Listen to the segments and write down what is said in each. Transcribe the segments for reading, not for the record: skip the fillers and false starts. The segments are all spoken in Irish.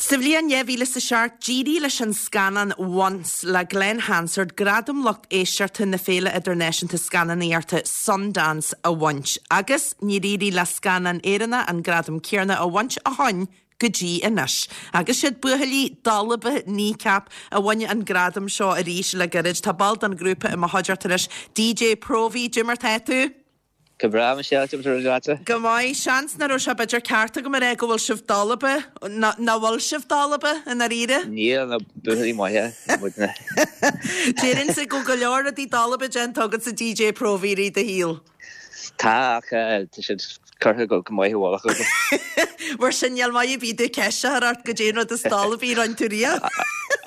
Sa bhliain 2007, d'éirigh leis an scannán Once le Glen Hansard gradam lucht éisteachta na Féile Idirnáisiúnta Scannánaíochta Sundance a bhaint, agus níor éirigh le scannán Éireannach an gradam céanna a bhaint ó shoin go dtí anois. Agus siad buachaillí dalba Kneecap a bhain an gradam seo arís le gairid. Tá ball den ghrúpa i mo chuideachta anois, DJ Próvaí. Cad é mar tá tú? Go breá, Michelle, cad é mar atá leatsa? Go maith. Seans nach raibh sé b'fhéidir ceart agam a rá go bhfuil sibh dalba, nach bhfuil sibh dalba, i ndáiríre? Níl, ná buachaillí maithe muidne. Déarfainnse go bhfuil go leor rudaí dalba déanta agatsa DJ Próvaí i rith do shaoil. Tá, ach tá siad curtha go maith i bhfolach agam. Mar sin, níl maith ar bith domh ceist a chur ort goidé an rud is dalbaí a rinne tú riamh.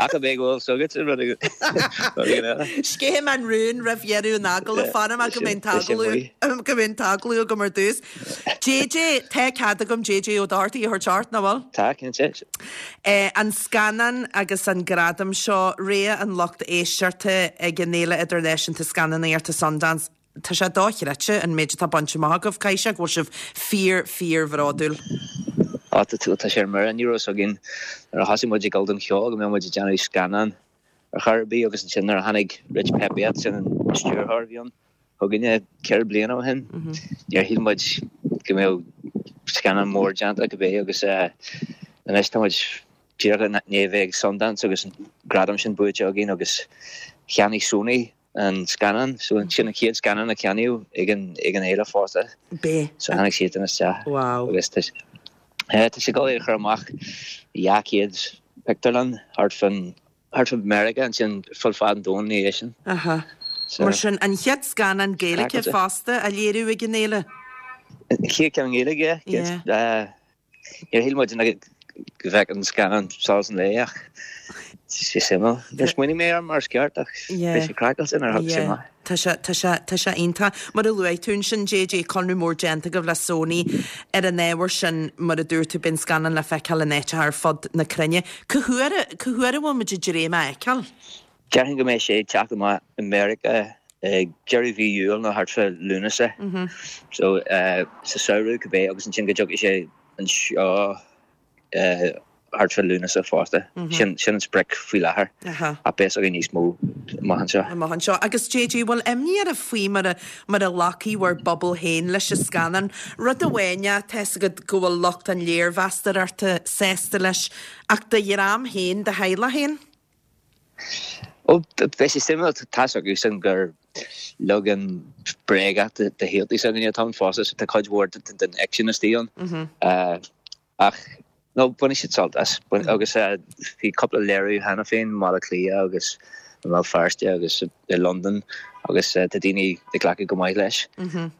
Ach an b'é go bhfuil 's agat an rud éigin eile. Sceithfidh mé an rún roimh dheireadh an agallaimh, fanfaidh mé go mbeidh an t-agallamh go mbeidh an t-agallamh agam ar dtús. JJ, tá cead agam JJ Ó Dochartaigh a thabhairt ort, nach bhfuil? Tá, cinnte. An scannán agus an gradam seo, rogha an lucht éisteachta ag an Fhéile Idirnáisiúnta Scannánaíochta Sundance, Tá sé dochreidte an méid atá bainte amach agaibh. Caithfidh sé go bhfuil sibh fíor, fíor bhródúil. Á, tá, tá sé ar mire. Ní raibh fhios againn nuair a thosaigh muid ag dul don cheol go mbeadh muid ag déanamh scannán ar chor ar bith agus ansin nuair a tháinig Rich Peppiatt, sin an stiúrthóir a bhí ann, chugainne ceithre bliana ó shin, níor shíl muid go mbeadh scannán mór déanta cibé agus anois tá muid díreach i ndiaidh a bheith ag Sundance agus an gradam sin buaite againn agus cheannaigh Sony an scannán. So sin an chéad scannán a ceannaíodh ag an ag an fhéile fosta. B'é. So tháinig siadsan isteach. Wow. Agus tá eh, tá sé ag dul é a chur amach i 200 pictiúrlann thart fán thart fán Meiriceá ansin fud fad an domhain ina dhiaidh sin. Aha. So Mar sin an chéad scannán Gaeilge fosta á léiriú ag an fhéile. An chéad ceann Gaeilge, yeah. Yeah. Níor shíl muid go bhfeicfeadh an scannán solas an lae ach tá sé suimiúil. Níor smaoinigh mé air mar is ceart ach bhí sé craiceáilte nuair a thagadh sé amach. Tá sé, tá sé, tá sé iontach. Mar a luaigh tú ansin, JJ, conradh mór déanta agaibh le Sony ar an ábhar sin, mar a dúirt tú, beidh an scannán le feiceáil in áiteacha ar fud na cruinne. Cá huair, cá huair a bhfuil muid ag dréim é a fheiceáil? Déarfainn go mbeidh sé ag teacht amach i Meiriceá ag deireadh mhí Iúil nó thart fá Lúnasa. So sa samhradh cibé agus ansin go dtiocfaidh sé anseo thart fá Lúnasa fosta. Sin sin an sprioc faoi láthair. Ach beidh a fhios againn níos mó amach anseo. Amach anseo. Agus JJ, bhfuil imní oraibh faoi mar a mar a ghlacfaidh bhur bpobal féin leis an scannán? Rud amháin é, tá 'fhios agat go bhfuil lucht an léirmheastóireachta sásta leis, ach do dhream féin, do theaghlach féin? Ó, beidh sé suimiúil, tá's acusan gur leagan bréagach de shaoltaí s'againne atá ann fosta, so tá cuid mhór den fhicsean istigh ann. Ach, no, bainfidh siad sult as. Agus bhí cúpla léiriú cheana féin i mBaile Átha Cliath agus i mBéal Feirste agus i Londain agus tá daoine ag glacadh go maith leis.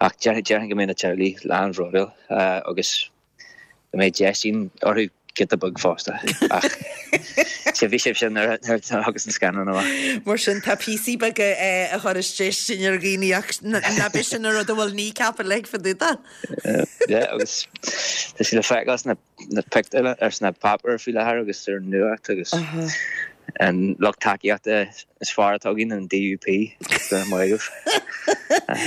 Ach déarfainn go mbeidh na teaghlaigh lán-bhródúil agus Go mbeidh déistín orthu giota beag fosta. Ach sea, bhí sibh sin nuair a thagas an scannán amach. Mar sin, tá píosaí beaga a chuireas déistin ar dhaoine ach ná b'é sin an rud a bhfuil Kneecap uilig fá dtaobh de. Yeah, agus tá sé le feiceáil sna pictiúrlanna, ar sna páipéir faoi láthair agus ar an nuacht agus an lucht tacaíochta is fearr atá againn, an DUP, go raibh maith agaibh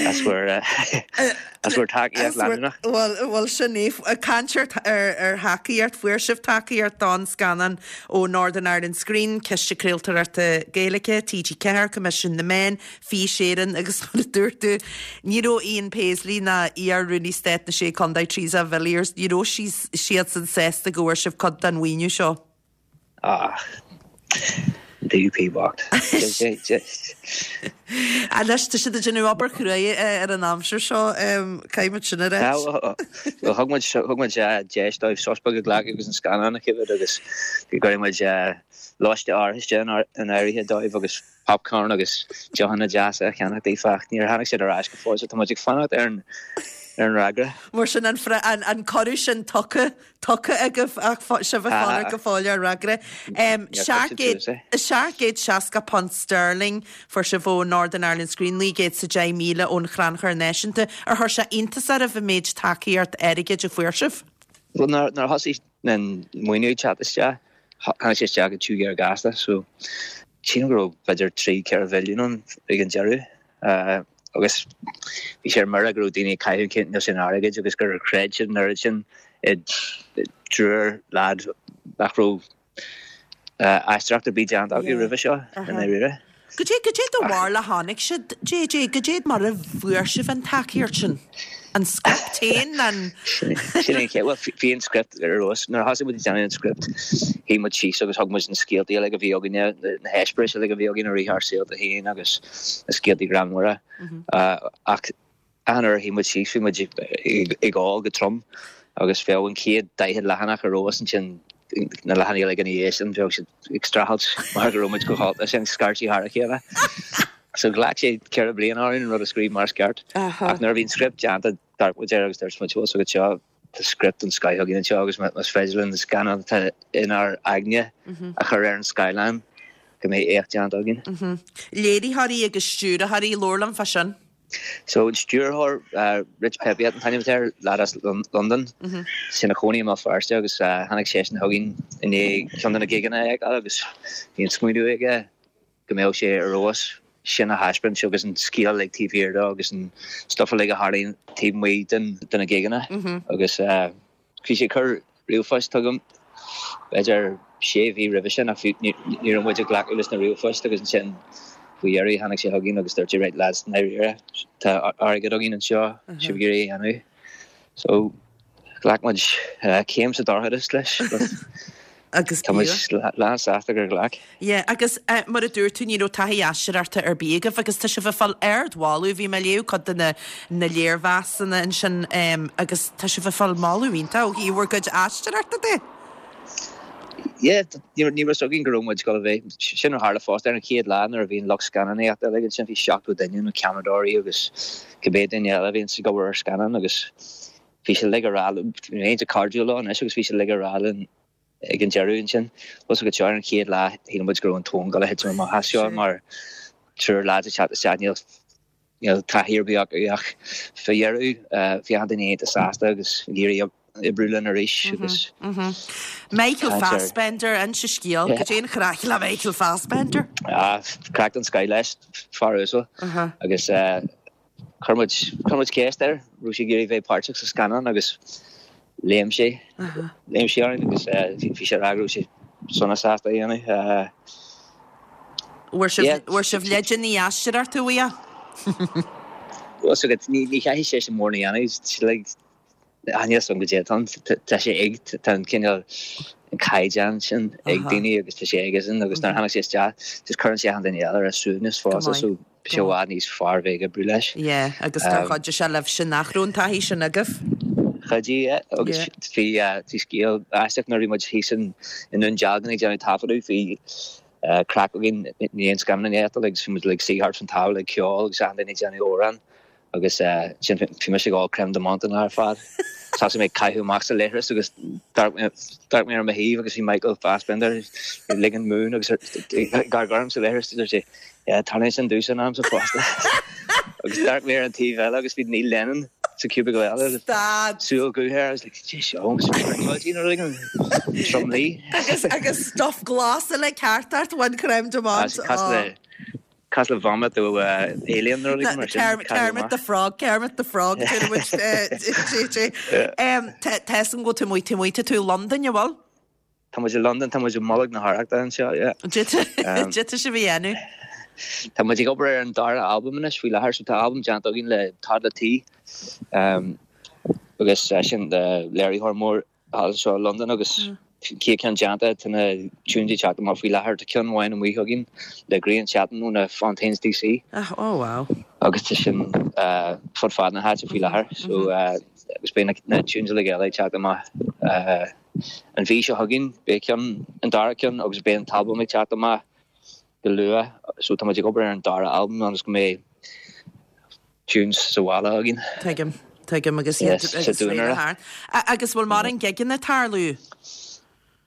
as bhur as bhur tacaíocht leanúnach. Bhuel, bhuel sin é. Ag caint ar ar thacaíocht, fuair sibh tacaíocht don scannán ó Northern Ireland Screen, Ciste Craoltóireachta Gaeilge, TG4, Coimisiún na Meán, Fís Éireann agus mar a dúirt tú, ní raibh Ian Paisley ná iar-Rúnaí Stáit na Sé Contae Theresa Villiers, ní raibh siadsan sásta go bhfuair sibh cuid den mhaoiniú seo. Ah, DUP bocht. Anois, tá siad ag déanamh obair chruaidh ar an aimsir seo, caithfidh muid sin a ráit. Bhuel, thug muid, thug muid deis dóibh sos beag a ghlacadh agus an scannán a choimhéad agus go gcuirfidh muid lóiste áirithinte in áirithe dóibh agus popcorn agus deochanna deasa a cheannach daofa ach níor tháinig siad ar ais go fóill so tá muid ag fanacht ar an ar an fhreagra. Mar sin an an cuireadh sin tugtha tugtha agaibh ach sibh ag fanacht go fóill ar fhreagra. £760 sterling fuair sibh ó Northern Ireland Screen, 910,000 ón Chrannchur Náisiúnta. Ar chuir sé iontas oraibh an méid tacaíocht airgid a fuair sibh? Bhuel nuair a thosaigh an maoiniú ag teacht isteach, tháinig sé isteach go tiubh géar gasta so sílim go raibh b'fhéidir 3, 4 mhilliún ann ag an deireadh agus bhí sé ar mire go raibh daoine ag caitheamh an cineál sin airgid agus gur chreid siad an oiread sin i dtriúr leaid nach raibh. aisteoireacht ar bith déanta acu roimhe seo i ndáiríre. Goidé, goidé do bharúil a tháinig siad, JJ, goidé mar a fuair sibh an tacaíocht sin? An script féin, an. Sin é an chéad, bhuel bhí an script ar fheabhas. Nuair a thosaigh muid ag déanamh an script, shuigh muid síos agus thug muid na scéaltaí uilig a bhí againne, na heispéiris uilig a bhí againn i rith ár saolta féin agus na scéaltaí greannmhara. Ach Achan uair a shuigh muid síos bhí muid ag ól go trom agus bheadh an chéad 40 leathanach ar fheabhas ansin na leathanaigh uilig ina dhiaidh sin bheadh siad ag streachailt mar go raibh muid chomh hólta sin scairtí thar a chéile. So ghlac sé ceithre bliana orainn an rud a scríobh mar is ceart. Ach nuair a bhí an script déanta d'amharc muid air agus dúirt muid bhfuil a fhios agat seo tá script den scoith againn anseo agus más féidir linn an scannán atá inár aigne a chur ar an scáileán go mbeidh éacht déanta againn. Léiritheoirí agus stiúrthóirí, labhair liom fá sin. So an stiúrthóir, Rich Peppiatt an t-ainm atá air, leaid as Londain, is ina chónaí i mBéal Feirste agus tháinig seisean chugainn i ndiaidh ceann de na gigeanna a fheiceáil agus bhí an smaoineamh aige go mbeadh sé ar fheabhas sin a thaispeáint agus an scéal uilig taobh thiar de agus an stuff uilig a tharlaíonn taobh amuigh de na gigeanna agus Bhí sé ag cur ríomhphoist chugam b'fhéidir sé mhí roimhe sin ach ní raibh muid ag glacadh leis na ríomhphoist agus ansin faoi dheireadh tháinig sé chugainn agus dúirt sé right lads i ndáiríre tá airgead againn anseo sibh ag iarraidh é a dhéanamh. So ghlac muid céim sa dorchadas leis but Agus tá muid lán sásta gur ghlac. Yeah, agus mar a dúirt tú, ní raibh taithí aisteoireachta ar bith agaibh agus tá sibh ag fáil ardmholadh. Bhí mé ag léamh cuid de na na léirmheasanna ansin agus tá sibh ag fáil moladh iontach ó thaobh bhur gcuid aisteoireachta de. Yeah, ní raibh fhios againn go raibh muid ag dul a bheith, sin a tharla fosta ar an chéad lá nuair a bhí an lucht scannánaíochta uilig ansin, bhí 70 duine, na ceamaradóirí agus cibé duine eile a bhí ag obair ar scannán agus bhí siad uilig ag rá, bhí mé iontach cairdiúil leo anois agus bhí siad uilig ag rá linn ag an deireadh ansin. Bhfuil fhios agat seo ar an chéad lá shíl muid go raibh an tóin ag dul a thitim amach as seo mar triúr lads ag teacht isteach níl níl taithí ar bith acu ach fá dheireadh bhí achan duine iontach sásta agus ag iarraidh oibriú linn arís agus Michael Fassbender, inis an scéal, goidé an chraic le Michael Fassbender? Ah, craic den scoith leis, fear uasal agus Chuir muid, chuir muid ceist air, raibh sé ag iarraidh bheith páirteach sa scannán agus léim sé, léim sé orainn agus bhí sé ag rá go raibh sé sona sásta a dhéanamh. Bhfuair sibh, bhfuair sibh leideanna aisteoireachta uaidh? Bhfuil fhios agat, ní, ní chaithfidh seisean mórán a dhéanamh, like, níl fhios agam goidé atá ann, tá sé ag, tá an cineál, an caighdeán sin ag daoine agus tá sé aigesean agus nuair a tháinig sé isteach, just cuireann sé achan duine eile ar a suaimhneas fosta so bhí sé i bhfad níos fearr bheith ag oibriú leis. Yeah, agus gur chuidigh sé libhse nach raibh an taithí sin agaibh. Chuidigh, yeah, agus bhí, bhí scéal aisteach nuair a bhí muid thíos in, i nDún Dealgan ag déanamh taifeadadh, bhí craic againn i ndiaidh an scannánaíocht agus bhí muid ag suí thart fán tábla ag ceol agus achan duine ag déanamh amhrán. Agus ansin bhí mise ag ól crème de menthe an lá ar fad. Thosaigh mé ag caitheamh amach sa leithreas agus d'amharc mé ar mo thaobh agus bhí Michael Fassbender ag ligean mún agus ag amharc orm sa leithreas. Dúirt sé, Yeah, tarlaíonn sin domhsa in amanta fosta. Agus d'amharc mé ar an taobh eile agus bhí Neil Lennon sa cubicle eile agus súil dhubh air. I was like, Cé seo? Springloidí nó rud éigin? Tromluí. Agus agus stuff glas uilig thart ort, one crème de menthe. Cosúil le vomit ó alien nó rud mar sin. Kermit the Frog, Kermit the Frog, dúirt muid JJ. Tá fhios agam go bhfuil tú amuigh, tú amuigh, tá tú i Londain, an bhfuil? Tá muid i Londain, tá muid i mbolg na hArrachta anseo, yeah. Cad tá sibh a dhéanamh? Tá muid ag obair ar an dara albam anois faoi láthair, so tá albam déanta againn le Toddla T agus sin léiritheoir mór thall anseo i Londain agus chéad ceann déanta, tá na tunes ag teacht amach faoi láthair, tá ceann amháin amuigh againn le Grian Chatten ó na Fontaines DC. Oh wow. Agus tá sin fud fad na háite faoi láthair so agus beidh na tunes uilig eile ag teacht amach an mhí seo chugainn, beidh ceann, an dara ceann agus beidh an t-albam ag teacht amach go luath so tá muid ag obair ar an dara albam ionas go mbeidh tunes sa bhaile againn. Tuigim, tuigim agus iad Yes, sa agus duanaire. réidh thart. Agus bhfuil mórán gigeanna ag tarlú?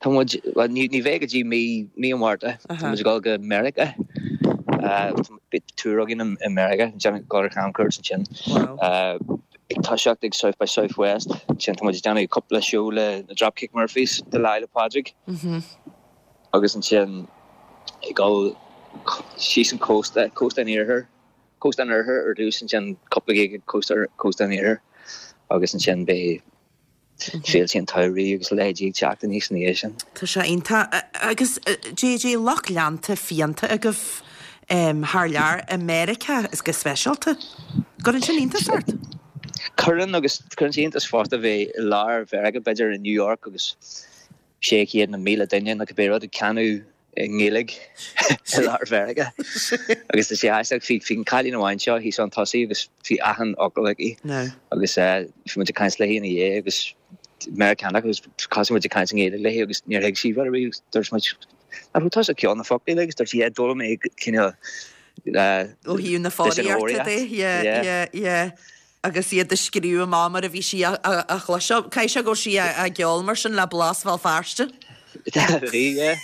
Tá muid, bhuel ní, ní bheidh go dtí mí, mí an Mhárta. Tá muid ag dul go Meiriceá. Beidh tour againn i, i Meiriceá, déanamh, dul ar chamchuairt ansin. Wow. Ag toiseacht ag South by Southwest, ansin tá muid ag déanamh cúpla seó le na Dropkick Murphys do Lá 'le Pádraig. Agus ansin ag dul síos an cósta, cósta an iarthair, cósta an oirthir ar dtús, ansin cúpla gig ag cósta, cósta an iarthair agus ansin beidh Féilte an tsamhraidh agus a leithéidí ag teacht aníos ina dhiaidh sin. Tá sé iontach. Agus JJ, lucht leanta fiánta agaibh thar lear, i Meiriceá is go speisialta. Gcuireann sin iontas ort? Cuireann agus cuireann sé iontas fosta bheith i lár Mheiriceá, b'fhéidir i New York agus 600 nó 1,000 duine nó cibé rud ag canadh i nGaeilge i lár Mheiriceá. Agus tá sé aisteach, bhí bhí an cailín amháin seo thíos chun tosaigh agus bhí achan fhocal aici agus bhí muid ag caint léi ina dhiaidh agus Meiriceánach agus thosaigh muid ag caint i nGaeilge léi agus níor thuig sí rud ar bith agus dúirt muid Nach raibh tusa ag ceol na foclaí agus dúirt sí yeah d'fhoghlaim mé cineál Ó thaobh na foghraíochta de, yeah, yeah, yeah. agus iad a scríobh amach mar a bhí sí á chloisteáil. Caithfidh sé go raibh sí á gceol mar sin le blas Bhéal Feirste. Bhí, yeah.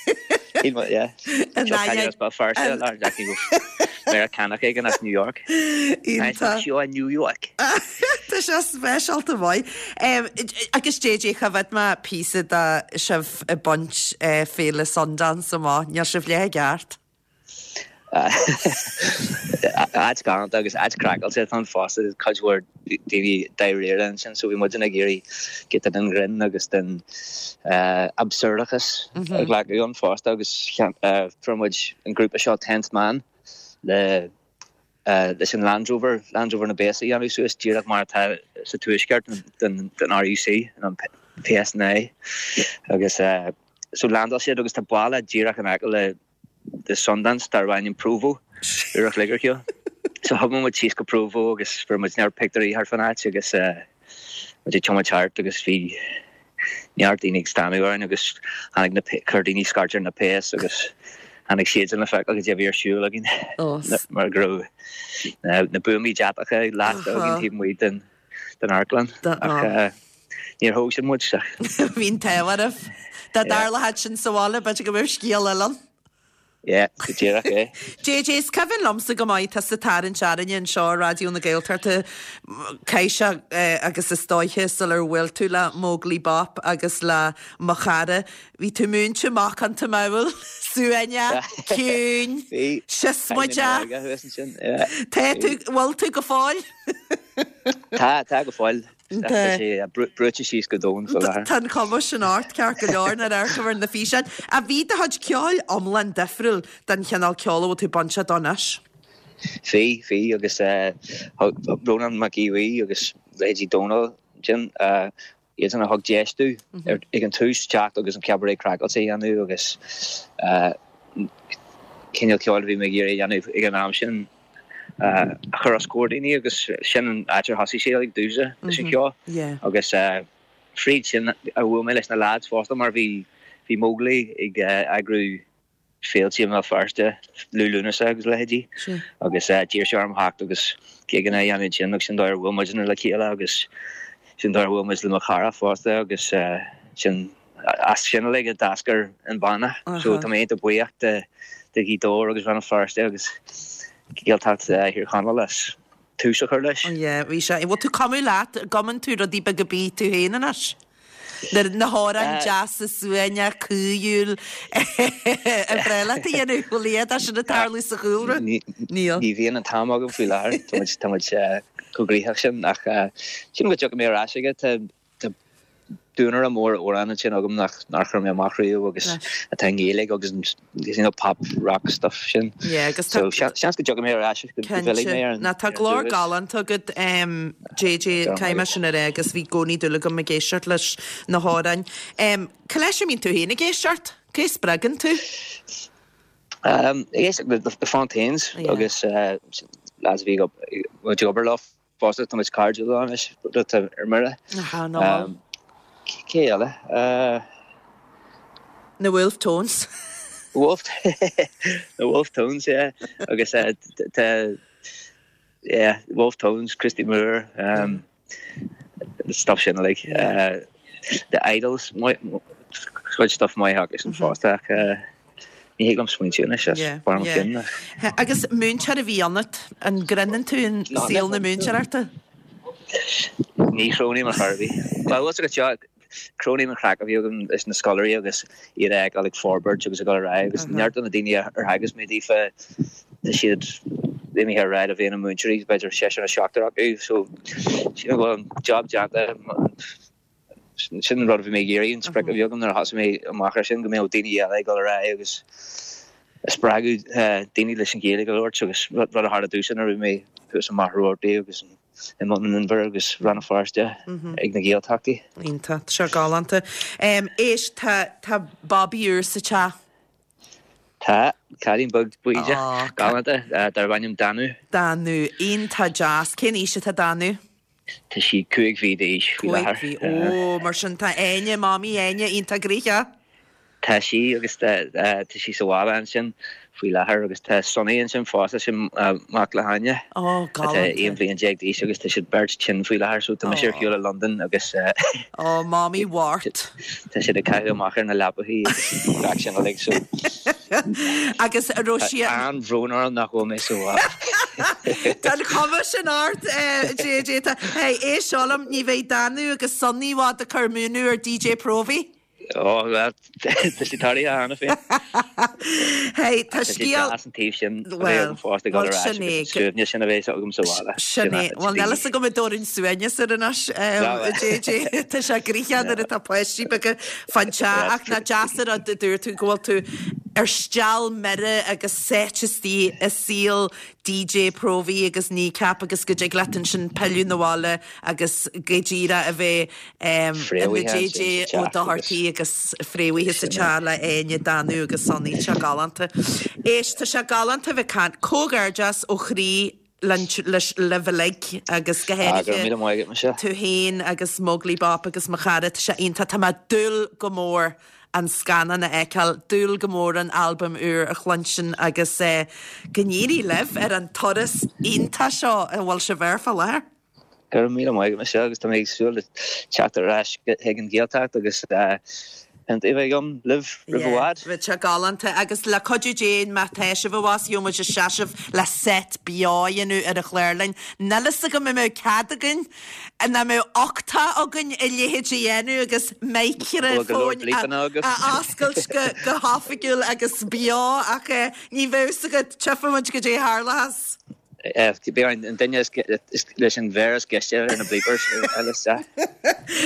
Shíl mé, yeah. Seo cailín as Béal Feirste, lár Jackie Meiriceánach éigin as New York. Iontach. Seo i New York. Tá sé speisialta maith. Agus JJ, choimhéad mé píosa de sibh ag baint Féile Sundance amach. Níl sibh leath i gceart. Áit galánta agus áit craiceáilte atá ann fosta, cuid mhór daoine dáiríre ansin so bhí muidne ag iarraidh giota den ghrinn agus den absurdachas a ghlacadh ann fosta agus fuair muid an grúpa seo Tenth Man le leis an Land Rover, Land Rover na bpéas a dhéanamh suas díreach mar atá sa tuaisceart den RUC, an PSNI agus so landáil siad agus tá baile díreach in aice le le Sundance darb ainm Provo, uair a chloig ar shiúl. So thiomáin muid síos go Provo agus fuair muid neart pictiúirí thart fán áit agus muid ag tiomáint thart agus bhí neart daoine ag stánadh orainn agus tháinig na chuir daoine scairt ar na péas agus tháinig siadsan le feiceáil cad é a bhí ar siúl againn mar go raibh na buamaí deatacha lasta againn taobh amuigh den den amharclann ach níor thóg siad muid. Bhí an t-ádh oraibh. Dá dtarlódh sin sa bhaile, b'fhéidir go mbeadh scéal eile ann. Yeah, go díreach é. JJ, is cuimhin liomsa go maith tusa ag tarraingt orainne anseo ar Raidió na Gaeltachta, caithfidh sé agus is dóiche sular bhuail tú le Móglaí Bop agus le Mo Chara, bhí tú múinte macánta mall, suaimhneach, ciúin, siosmaideach. Tá tú, bhfuil tú go fóill? Tá, tá go fóill. Tá sé brúite síos go domhain faoi láthair. Tá an chuma sin ort, ceart go leor, nuair a amharcaim ar na físeáin. Ach bhí do chuid ceoil iomlán difriúil den chineál ceoil a bhfuil tú bainteach dó anois. Bhí, bhí, agus Rónán Mac Aodha Bhuí agus leithéidí Dónal ansin, iadsan a thug deis domh ag an tús teacht agus an Cabaret Craiceáilte a dhéanamh agus cineál ceoil a bhí mé ag iarraidh a dhéanamh ag an am sin a chur os comhair daoine agus sin an áit ar thosaigh sé ag domhsa leis an cheol agus fríd sin a bhuail mé leis na lads fosta mar bhí bhí Móglaí ag eagrú féilte i mBéal Feirste, Liú Lúnasa agus a leithéidí agus d'iarr sé orm theacht agus gigeanna a dhéanamh ansin agus sin dóigh ar bhuail muidne le chéile agus sin dóigh ar bhuail muid le mo chara fosta agus sin as sin uilig a d'eascair an banna. So tá mé iontach buíoch de de Ghaoth Dobhair agus Rann na Feirste agus Gaeltacht Thír Chonaill as tús a chur leis. Yeah, bhí sé. Bhfuil tú ag cumadh leat, an gcumann tú rudaí beaga bídh tú féin anois? Na hamhráin deasa suaimhneach caoithiúil ar bhreá leat a dhéanamh, bhfuil a fhios sin ag tarlú sa chúlra? Níl. Ní bhíonn an t-am agam faoi láthair, tá muid tá muid chomh gnoitheach sin ach sílim go dtiocfaidh mé ar ais aige. Tá duanaire mór amhrán ansin agam nach nár chuir mé amach riamh agus atá i nGaeilge agus an you know pop rock stuff sin. Yeah, agus tá. So seans go dtiocfaidh mé ar ais go bhfillfidh mé ar an. Ná tá glór galánta agat JJ, caithfidh mé sin a rá agus bhí i gcónaí dúil agam ag éisteacht leis na hamhráin. Cá leis a mbíonn tú féin ag éisteacht? Cé a spreagann tú? Ag éisteacht le The Fontaines agus lads a bhí ag obair leo. Fosta tá muid cairdiúil anois, rud atá ar mire. Aha, ná. Cé eile? Na Wolfe Tones. Wolf Na Wolfe Tones, yeah. Agus tá yeah, Wolfe Tones, Christy Moore, um, stuff sin like. Uh, the Idles, cuid stuff maith acusan fosta ach uh, Ní thig liom smaointiú anois as barr mo chinn. Agus múinteoir a bhí ionat, an gcreideann tú in saol na múinteoireachta? Ní chronaím ar chor ar bith. Bhuel, bhfuil agat seo, cronaím an chraic a bhí agam leis na scoláirí agus iad a fheiceáil ag forbairt agus ag dul ar aghaidh agus neart de na daoine ar theagasc mé daofa, tá siad imithe ar aghaidh le bheith ina múinteoirí, b'fhéidir seisear nó seachtar acu, so sílim go bhfuil an job déanta. Sin an rud a bhí mé ag iarraidh, an sprioc a bhí agam nuair a thosaigh mé amach ar sin, go mbeadh daoine eile ag dul ar aghaidh agus ag spreagadh daoine leis an Ghaeilge a labhairt agus rud a tharla domhsa nuair a bhí mé thuas i Machaire Rabhartaigh agus i mBun an Inbhir agus Rann na Feirste ag na Gaeltachtaí. Iontach, tá sé galánta. Éist, tá, tá babaí úr sa teach. Tá, cailín beag bídeach, galánta, darb ainm Danú. Danú, iontach deas. Cén aois atá Danú? Tá sí 5 mhí d'aois faoi láthair. 5 mhí, ó, mar sin tá Áine, Mamaí Áine, iontach gnoitheach. Tá sí agus tá sí sa bhaile ansin faoi láthair agus tá Sonny ansin fosta, sin mac le hÁine. Ó, galánta. Atá 11 bhliain d'aois agus tá siad beirt tinn faoi láthair so tá mise ar shiúl i Londain agus. Ó, Mamaí Mháirt. Tá siad ag caitheamh amach ar na leapachaí agus gach sin uilig so. Agus a raibh sí. Tá an-bhrón orm nach bhfuil mé sa bhaile. Tá an chuma sin ort, JJ. Tá, hey, éist seo liom, ní bheidh Danú agus Sonny i bhfad ag cur múineadh ar DJ Próvaí. Ó, bhuel, tá sé tarlaithe cheana féin. Hey, tá scéal. Tá sé deas an taobh sin a bheith agam fosta ag dul ar ais agus an suaimhneas sin a bheith agam sa bhaile. Sin é. Bhuel, níl fhios agam an dtabharfainn suaimhneas air anois, JJ. Tá sé gnoitheach nuair atá páistí beaga fán teach ach nach deas an rud a dúirt tú go bhfuil tú ar steall mire agus sáite istigh i saol DJ Próvaí agus Kneecap agus go dtig leat ansin pilleadh 'na bhaile agus go díreach a bheith ina JJ Ó Dochartaigh agus fréamhaithe sa teach le Áine, Danú agus Sonny. Tá sé galánta. Éist, tá sé galánta a bheith ag caint. Comhghairdeas ó chroí libh uilig agus go háirithe tú féin agus Móglaí Bop agus mo chara. Tá sé iontach. Tá mé ag dúil go mór an scannán a fheiceáil, dúil go mór an albam úr a chluinstin agus go n-éirí libh ar an turas iontach seo a bhfuil sibh air fá láthair. Go raibh míle maith agat Michelle agus tá mé ag súil le teacht ar ais chuig an Ghaeltacht agus pionta a bheith agam libh roimh i bhfad. Bheadh sé galánta agus le cuidiú Dé má tá sibh abhus gheobhaidh muid seasamh le set beo a dhéanamh ar an chlárlann. Níl fhios agam an mbeadh cead againn, an mbeadh uchtach againn a leithéid a dhéanamh agus micreafóin a oscailt go hoifigiúil agus beo ach ní bheadh fhios agat, tchífidh muid goidé a tharlóchas. Beidh an duine leis an mhéar is gaiste ar na bleepers eile isteach.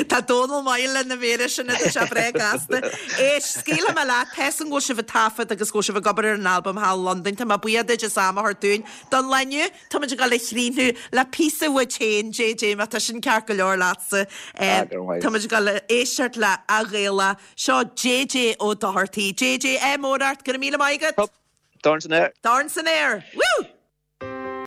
Tá Dónal maith le na méara sin tá sé breá gasta. Éist, scaoilfidh mé leat, tá 'fhios a'm go bhfuil sibh ag taifead agus go bhfuil sibh ag obair ar an albam thall i Londain. Tá mé buíoch duit as am a thabhairt dúinn don lá inniu. Tá muid ag dul a chríochnú le píosa uait féin, JJ, má tá sin ceart go leor leatsa. Tá muid ag dul a éisteacht le A Ghaela. Seo JJ Ó Dochartaigh. JJ, ádh mór ort, go raibh míle maith agat! Dorn san aer! Dorn san aer! Woo!